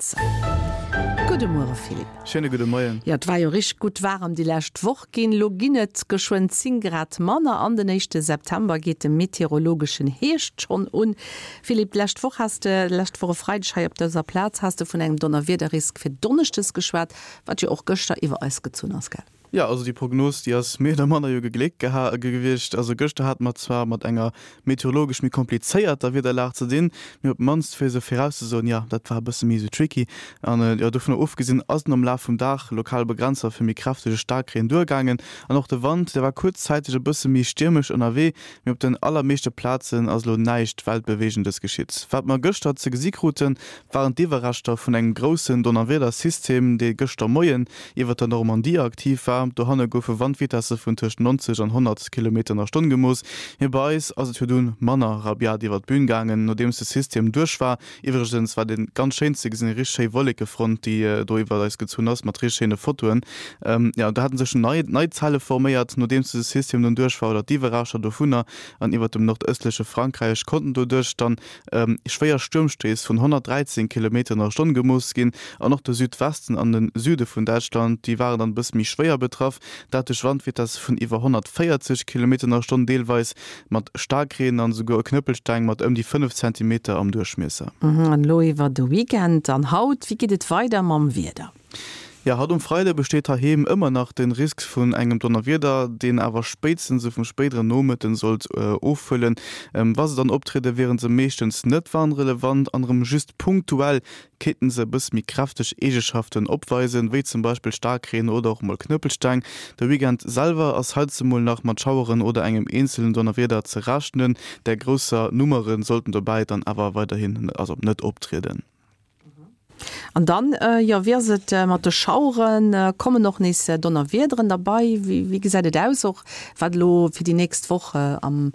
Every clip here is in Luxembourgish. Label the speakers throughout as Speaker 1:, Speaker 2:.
Speaker 1: Begrenzer. Gudde Muere Philippe.
Speaker 2: Schéine gudde Moien.
Speaker 1: Jo, et war jo richteg gutt waarem déi lescht Woch ginn. Lo ginn et geschwënn 10 Grad manner an den éischte September geet de meteorologeschen Hierscht schonn un. Philippe, d'lescht Woch has de, lescht Woch e Freideg hei op dëser Plaz, has de vun engem Donnerwiederrisk fir Donneschdes geschwat, wat jo och gëschter iwwer eis gezunn ass, gell?
Speaker 2: Jo, also déi Prognos, déi ass méi oder manner jo gegléckt geha gewiescht. Also gëschter hate mer zwar mat enger meteorologesch méi komplizéierter Wiederlag ze dinn, mee op d'mannst fir se virauszesoen, jo, dat war e bësse méi esou tricky. An jo, dovunner ofgesinn ass et am Laf vum Dag lokal Begrenzer fir méi kräftege Staarkreen duergaangen. An och de Wand, dee war kuerzzäiteg e bësse méi stiermesch ënnerwee, mee op den allermeeschte Plazen ass elo näischt Weltbeweegendes geschitt. Wat mer gëschter ze gesi kruten, waren d'Iwwerreschter vun engem groussen Donnerwiedersystem, dee gëschter Moien iwwer der Normandie aktiv war. Dohanne goufe Wandvitesse vun tëscht 90 an 100 Kilometer an der Stonn gemooss. Mee bei eis ass et jo dunn manner rabiat iwwer d'Bün gaangen, nodeems de System duerch war. Iwwregens war dee ganz schéin ze gesinn, eng richteg schéi Wollekefront, déi do iwwer eis gezunn ass, mat richteg schéine Fotoen. Jo, do hate sech nei nei Zelle forméiert, nodeems dëse System dunn duerch war, oder d'Iwwerreschter dovunner, an iwwer dem nordëstleche Frankräich konnten doduerch dann Schwéier Stuermstéiss vun 113 Kilometer an der Stonn gemooss ginn. An och de Südwesten an de Süde vun Däitschland, déi waren dann e bësse méi schwéier betraff, dat duerch Wandvitesse vun iwwer 140 Kilometer an der Stonn, deelweis mat Staarkreen an esouguer Knëppelsteng mat ëm déi 5 Zentimeter am Duerchmiesser.
Speaker 1: An elo iwwer de Weekend an haut, wéi geet et weider mam Wieder?
Speaker 2: Jo, haut um Freide besteet heiheem ëmmer nach de Risk vun engem Donnerwieder, deen awer spéitstens esou vum spéidere Nomëtten sollt ofhuelen. Wa se dann optriede wiere se meeschtens net warnrelevant an erëm just punktuell kéinten se e bësse méi kräfteg Eegeschaften opweisen, wéi zum Beispill Staarkreen oder och mol Knëppelsteng. De Weekend selwer ass heizemol nach mat Schaueren oder engem eenzelen Donnerwieder ze rechnen, där grousser Nummere sollten dobäi dann awer weiderhin also net optrieden.
Speaker 1: An dann, jo, wéi ass et mat de Schaueren? Kommen och nees Donnerwiederen derbei? Wéi gesäit et aus, och wat elo fir déi nächst Woch am,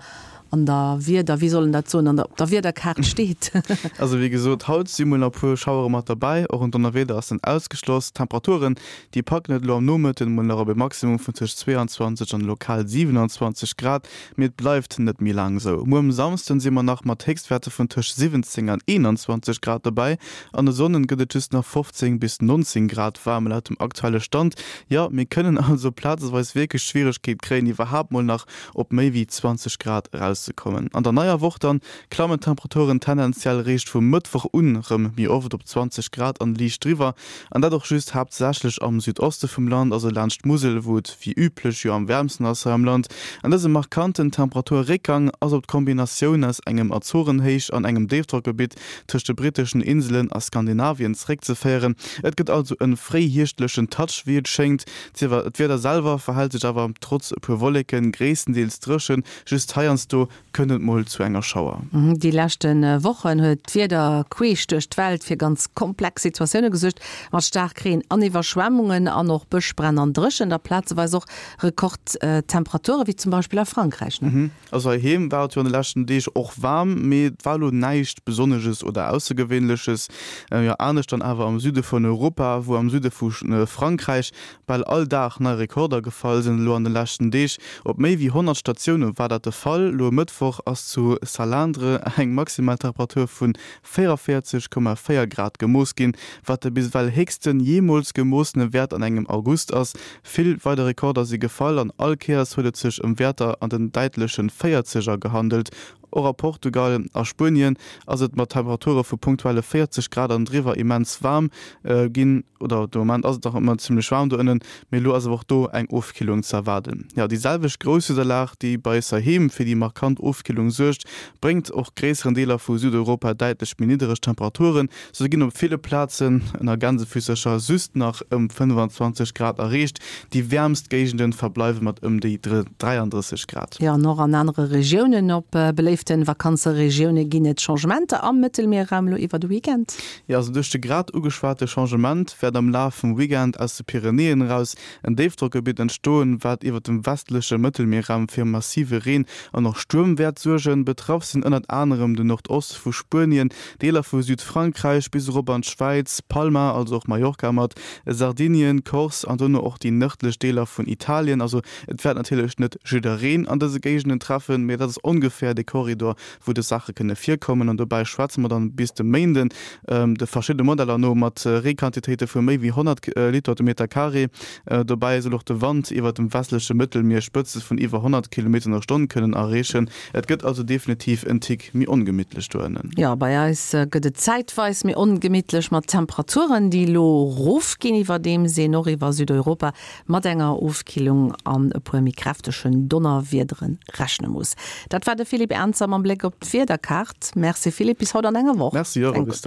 Speaker 1: an der Wieder, wéi soll en dat soen, an der, op der Wiederkaart steet?
Speaker 2: Also wéi gesot, haut si mol nach e puer Schauere mat derbäi, och en Donnerwieder ass net ausgeschloss. D'Temperaturen, déi packen et elo am Nomëtten mol nach op e Maximum vun tëscht 22 an lokal 27 Grad. Mee et bleift net méi laang esou. Muer um Samsden si mer nach mat Héchstwäerter vun tëscht 17 an 21 Grad dobäi. An de Sonnden gëtt et just nach 15 bis 19 Grad waarm laut dem aktuelle Stand. Jo, mir kënnen also plazeweis wierklech d'Schwieregkeet kréien, iwwerhaapt mol nach op méi wéi 20 Grad erauszekommen. An der neier Woch dann klammen d'Temperaturen tendenziell réischt vum Mëttwoch un rëm méi oft op 20 Grad an liicht driwwer. An dat och just haaptsächlech am Südoste vum Land, also laanscht d'Musel, wou et wéi üblech jo am wäermsten ass hei am Land. An dëse markanten Temperaturréckgang ass op d'Kombinatioun aus engem Azorenhéich an engem Déifdrockgebitt tëscht de britteschen Inselen a Skandinavien zeréckzeféieren. Et gëtt also e fréihierschtlechen Touch, wéi et schéngt. D'Wieder selwer verhält sech awer trotz e puer Wolleken gréisstendeels dréchen, just heiansdo kënnt et mol zu enger Schauer.
Speaker 1: Déi leschte Wochen huet d'Wieder queesch duerch d'Welt fir ganz komplex Situatioune gesuergt, mat Staarkreen an Iwwerschwemmungen an och Bëschbränn an Dréchent a plazeweis och Rekordtemperature wéi zum Beispill a Frankräich.
Speaker 2: Also heiheem war et jo an de leschten Deeg och waarm, mee et war elo näischt Besonnesches oder Aussergewéinleches. Jo, anescht dann awer am Süde vun Europa, wou am Süde vu Frankräich Bal all Dag nei Rekorder gefall sinn elo an de leschten Deeg. Op méi wéi 100 Statioune war dat de Fall. Elo e Mëttwoch ass zu Salindres eng maximal Temperatur vu 44,4 Grad gemooss ginn, wat de bis ewell héchsten jeemools gemoossene Wäert an engem August ass. Vill weider Rekorder si gefall an all Kéiers huet et sech ëm Wäerter an den däitleche Véierzeger gehandelt. Och a Portugal a Spuenien ass et mat Temperature vu punktuelle 40 Grad an driwwer immens waarm ginn, oder de Moment ass et nach ëmmer zimmlech waarm do ënnen, mee elo ass awer och do eng Ofkillung ze erwaarden. Jo, déi selwecht grouss Wiederlag, déi bei eis heiheem fir déi markant Ofkillung suergt, bréngt och gréisseren Deeler vu Südeuropa däitlech méi niddereg Temperaturen. Sou ginn op ville Plazen ënner Gänsefüssercher just nach ëm 25 Grad erreecht, déi wäermst Géigende verbleiwe mat ëm déi 33 Grad.
Speaker 1: Jo, an och an anere Regiounen op beléifte Vakanzeregioune ginn et Changementer am Mëttelmierraum elo iwwer de Weekend.
Speaker 2: Jo, also duerch de grad ugeschwate Changement wäert am Laf vum Weekend aus de Pyrenäen eraus en Déifdrockgebitt entstoen, wat iwwer dem westleche Mëttelmierraum fir massive Reen an och Stuerm wäert suergen. Betraff sinn ënnert anerem de Nordoste vu Spuenien, Deeler vu Südfrankräich bis erop an d'Schwäiz, Palma, also och Mallorca mat, Sardinien, Corse an dono och déi nërdlech Deeler vun Italien. Also et wäert natierlech net jiddereen an dëse Géigenden treffen, mee dat ass ongeféier de Korridor. Korridor, wou dës Saache kënne virkommen. An dobäi schwätze mer dann bis de Méinden de verschiddene Modeller no mat Reequantitéite vu méi wéi 100 Liter de Meter Carré. Dobäi soll och de Wand iwwert dem westleche Mëttelmier Spëtze vun iwwer 100 Kilometer an der Stonn kënnen erreechen. Et gëtt also definitiv en Tick méi ongemittlech do ënnen.
Speaker 1: Jo, bei eis gëtt et zäitweis méi ongemittlech mat Temperaturen, déi elo rofginn, iwwerdeems een och iwwer Südeuropa mat enger Ofkillung an e puer méi kräftegen Donnerwiedere rechne muss. Dat war de Philippe Ernzer mam Bléck op d'Wiederkaart. Merci Philippe, bis haut an enger Woch.
Speaker 2: Merci och a bis dann.